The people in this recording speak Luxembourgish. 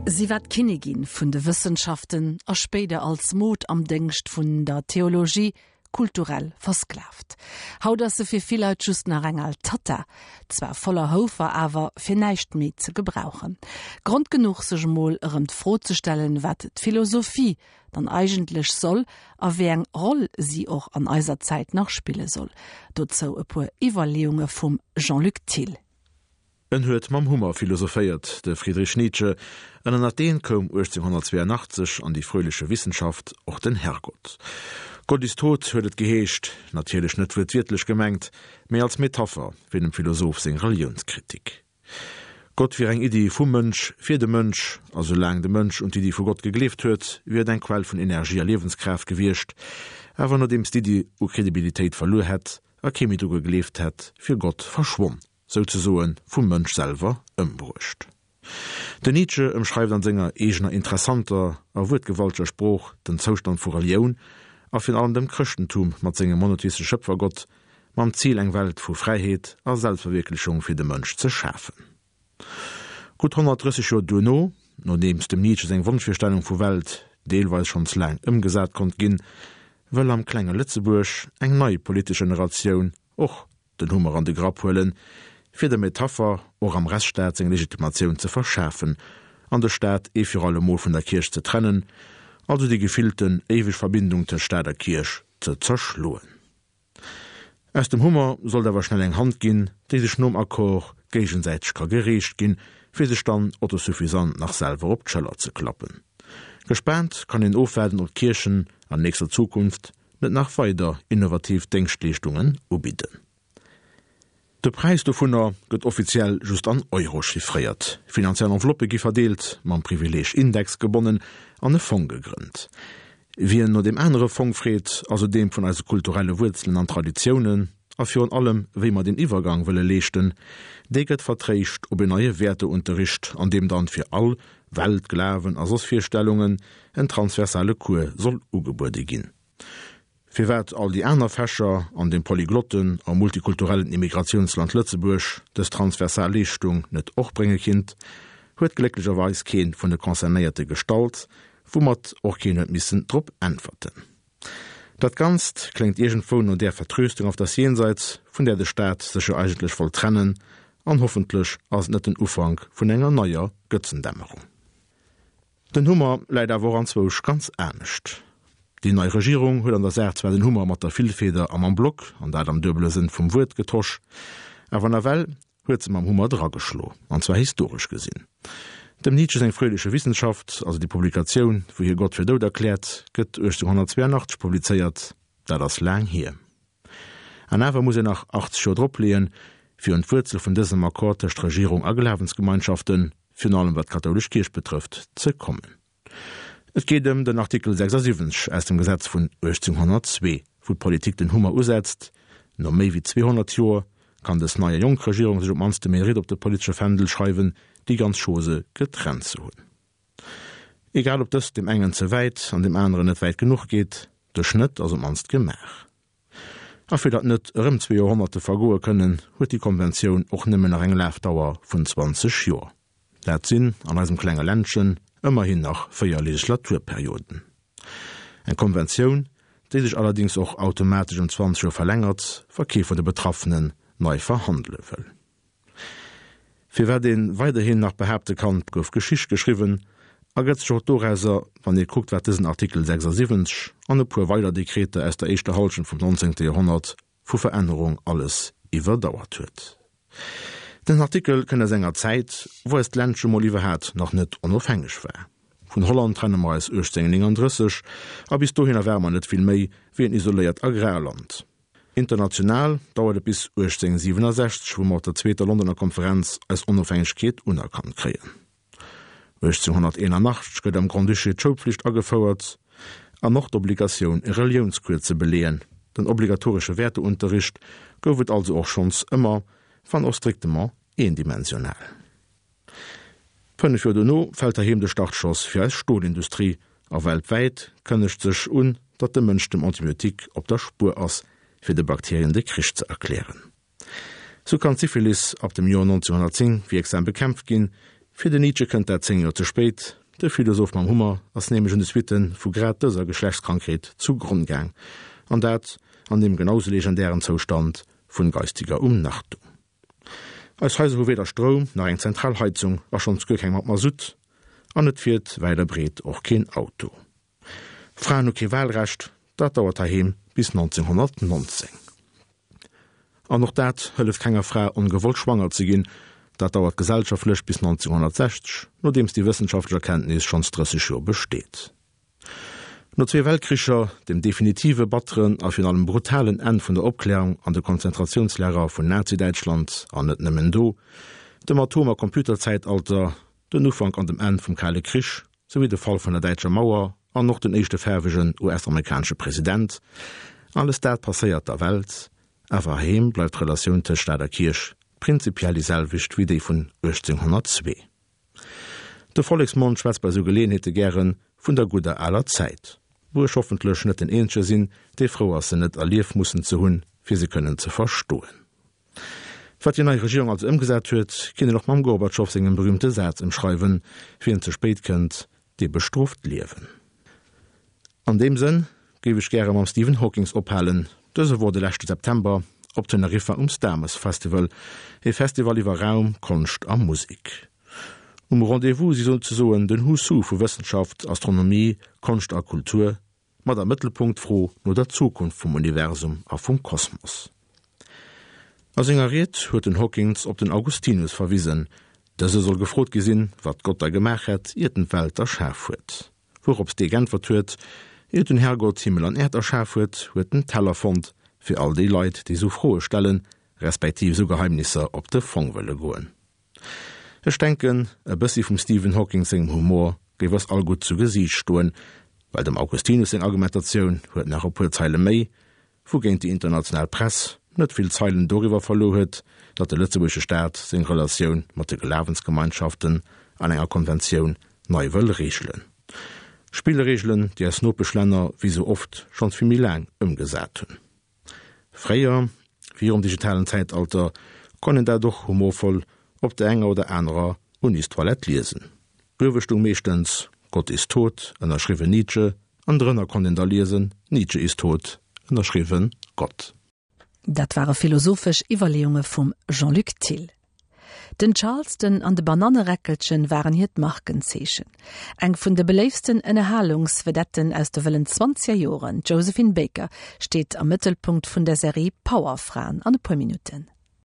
Si war d'Kinnigin vun de Wëssenschaften a spéider als Mod am Déngscht vun der Theologie kulturell versklavt. Haut ass se fir vill Leit just nach eng al Tatta, zwar voller Houfer, awer fir näischt méi ze gebrauchen. Grond genuch sech emol erëm d'Fro ze stellen, wat d'Philosophie dann eigentlech soll a wéi eng Roll si och an eiser Zäit nach spille soll. Dozou e puer Iwwerleeunge vum Jean-Luc Thill. En huet mam Hummer philosophéiert, de Friedrich Nietzsche, an ënnert deen koum 1882 an die fröhliche Wissenschaft och den Herrgott. Gott ist tot huet et geheescht, natierlech net wuertwiertlech gemengt, mee als Metapher fir dem Philosoph seng Reliounskritik. Gott wier eng Iddi vum Mënsch fir de Mënsch, a soulaang de Mënsch un d'Iddi vu Gott gegleeft huet, wier et eng Quell vun Energie a Liewenskraaft gewiescht, awer nodeems d'Iddi u Kredibilitéit verluer hätt a kee méi dru gegleeft hätt, wier Gott verschwonn. souzesoe vum Mënsch selwer ëmbruecht. Den Nietzsche ëmschreift an senger eegener interessanter a wuertgewalteger Sprooch den Zoustand vu Relioun a virun allem dem Chrëschtentum mat sengem monotheistesche Schëpfergott, mam Zil eng Welt vu Fräiheet a Selbstverwierklechung fir de Mënsch ze schafen. Gutt 130 Joer duerno, nodeems dem Nietzsche seng Wonschvirstellung vu Welt deelweis schonns laang ëmgesat konnt ginn, wëll am klenge Lëtzebuerg eng nei politesch Generatioun och den Hummer an de Grapp huelen, fir der Metapher och am Rechtsstaat seng Legitimatioun ze verschafen an de Staat ee fir alle Mol vun der Kierch ze trennen, also déi gefillten éiweg Verbindung tëscht Staat a Kierch ze zerschloen. Aus dem Hummer sollt awer schnell eng Hand ginn, déi sech nom Accord géigesäiteg ka gereecht ginn, fir sech dann autosuffisant nach selwer op d'Schëller ze klappen. Gespaant kann een ofwaarden, ob d'Kierchen an nächster Zukunft net nach weider innovativ Déngschtleeschtungen ubidden. De Präis dovunner gëtt offiziell just an Euro chiffréiert. Finanziell Enveloppë gi verdeelt, mam Privileeg Index gebonnen an e Fong gegrënnt. Wien no deem anere Fong freet, also deem vun eise kulturelle Wuerzelen an Traditiounen a virun allem wéi mer deen Iwwergang wëlle leeschten, dee gëtt vertréischt op en neie Wäerteunterricht, an deem dann fir all Welt, Glawen a soss Virstellungen en transversale Cours soll ugebuede ginn. Firwat all déi aner Fächer an dem polyglotten a multikulturellen Immigratiounsland Lëtzebuerg dës transversal Leeschtung net och brénge kinnt, huet glécklecherweis kee vun de Concernéierte gestallt, woumat och keen huet missen drop äntwerten. Dat Ganzt kléngt iergendwou no där Vertröstung auf das Jenseits, vun där de Staat sech jo eigentlech wollt trennen, an hoffentlech ass et net den Ufank vun enger neier Götzendämmerung. Den Hummer läit awer och anzwousch ganz anescht. Déi nei Regierung huet an der Saach zwar den Hummer mat der Villfeder a mam Block, an dat am duebele Sënn vum Wuert, getosch, awer nawell huet se mam Hummer drageschlo, an zwar historesch gesinn. Dem Nietzsche seng Fröhliche Wissenschaft, also déi Publikatioun, wou hie Gott fir dout erkläert, gëtt 1882 publizéiert, dat ass laang hier. An awer muss een nach 80 Joer dropleeën, fir un d'Wuerzel vun dësem Accord tëscht Regierung a Glawensgemeinschaften, virun allem wat d'kathoulesch Kierch betrëfft, ze kommen. Et geet ëm den Artikel 76 aus dem Gesetz vun 1802, wou d'Politik den Hummer usetzt. No méi wéi 200 Joer kann dës nei a jonk Regierung sech op d'mannst de Mérite op de politesche Fändel schreiwen, déi ganz Chose getrennt ze hunn. Egal ob dëst deem engen ze wäit an deem aneren net wäit genuch geet, de Schnëtt ass op d'mannst gemaach. A fir datt net erëm zwee Joerhonnerte vergoe kënnen, huet déi Konventioun och nëmmen nach eng Lafdauer vun 20 Joer. Dat sinn an eisem klenge Ländchen ëmmerhin nach véier Legislaturperioden. Eng Konventioun, déi sech allerdéngs och automatesch ëm 20 Joer verlängert, wa kee vun de Betraffenen nei verhandele wëll. Firwat ee weiderhin nach behaapte kann, 't gouf Geschicht geschriwwen, ergëtt sech och dorauser, wann ee kuckt, wat dësen Artikel 76 an e puer weider Dekreter aus der éischter Hallschent vum 19. Joerhonnert vu Verännerung alles iwwerdauert huet. Den Artikel kënnt aus enger Zäit, wou eist Ländche mol iwwerhaat nach net onofhängeg war. Vun Holland trenne mer eis 1839, a bis dohinner ware mer net vill méi wéi en isoléiert Agrarland. International dauert et bis 1867, wou mer op der zweeter Londoner Konferenz eis Onofhängegkeet unerkannt kréien. 1881 gëtt am Grand-Duché d'Schoulpflicht agefouert an och d'Obligatioun e Reliounscours ze beleeën. Den obligatoresche Wäerteunterricht gouf et also och schonns ëmmer, wann och strictement eendimensional. 5 Joer dono fält heiheem de Startschoss fir eis Stolindustrie a weltwäit kënnegt sech un, datt de Mënsch dem Antibiotique op der Spuer ass, fir de Bakterien de Krich ze erklären. Sou kann d'Syphilis ab dem Joer 1910 wierksam bekämpft ginn. Fir den Nietzsche kënnt dat 10 Joer ze spéit, de Philosoph mam Hummer ass nämlech un de Suitte vu grad dëser Geschlechtskrankheet zu Gronn gaang, an dat an deem genau sou legendären Zoustand vun geistiger Umnachtung. Eis Haiser hu weder Stroum nach eng zentral Heizung a schonns guer keng mat Masutt, an et fiert wäit a breet och keen Auto. Fraen hu kee Wahlrecht, dat dauert heiheem bis 1919. An och dat hëlleft kenger Fra ongewollt schwanger ze ginn, dat dauert gesellschaftlech bis 1960, nodeems déi wëssenschaftlech Erkenntnis schonns 30 Joer besteet. No zwee Weltkricher, dem definitive batteren a virun allem brutalen Enn vun der Opklärung an de Konzentratiounslager vun Nazi-Däitschland, an net nëmmen do, dem Atom a Computerzäitalter, den Ufank an dem Enn vum Kale Krich, souwéi de Fall vun der däitscher Mauer an och den éischte faarwegen US-amerikanesche President, alles dat passéiert der Welt, awer heiheem bleift d'Relatioun tëscht Staat a Kierch prinzipiell déi selwecht wéi déi vun 1802. De Volleksmond schwätzt bei sou Geleeënheete gäre vun der gudder aler Zäit, wou ech hoffentlech net den eenzege sinn, dee frou ass se net erlief mussen ze hunn, fir se kënnen ze verstoen. Wat déi nei Regierung also ëmgesat huet, kinnt een och mam Gorbatschow sengem berühmte Saz ëmschreiwen, Wien ze spéit kënnt, dee bestrooft d'Liewen. An deem Sënn géif ech gäre mam Stephen Hawkings ophalen. Dëse wor de leschte September op Teneriffa um Starmus Festival, e Festival iwwer Raum, Konscht a Musek. Um Rendez-vous si souzesoen den Who's Who vu Wëssenschaft, Astronomie, Konscht a Kultur, Mat am Mëttelpunkt d'Fro no der Zukunft vum Universum a vum Kosmos. A senger Ried huet den Hawkins op den Augustinus verwisen. Dëse soll gefrot gi sinn, wat Gott da gemaach hätt, iert en d'Welt erschaf huet. Wourops dee g'äntwert huet, Iert den Herrgott Himmel an Äerd erschaf huet, huet en Teller fonnt fir all déi Leit, déi sou Froe stellen, respektiv sou Geheimnisser op de Fong wëlle goen. Ech denken, e bëssi vum Stephen Hawking sengem Humor géif eis all gutt zu Gesiicht stoen, well dem Augustinus seng Argumentatioun huet nach e puer Zeile méi, wougéint déi international Press net vill Zeilen doriwwer verluer huet, datt de lëtzebuergesche Staat seng Relatioun mat de Glawensgemeinschaften an enger Konventioun nei wëll reegelen. Spillreegelen, déi eis Nopeschlänner wéi sou oft schonns vill méi laang ëmgesat hunn. Fréier, virum digitalen Zäitalter, konnt een dat och humorvoll op der enger oder anerer Unistoilette liesen. Uewe stung meeschtens Gott ist tot, ënnerschriwwen Nietzsche, an drënner konnt een da liesen Nietzsche ist tot, ënnerschriwwen Gott. Dat ware philosophesch Iwwerleeunge vum Jean-Luc Thill. Den Charleston an de Bananneräckelchen waren hiert Markenzeechen. Eng vun de beléiftsten Ënnerhalungsvedetten aus de wëllen zwanzeger Joren, d'Josephine Baker, steet am Mëttelpunkt vun der Serie Powerfraen an e puer Minutten.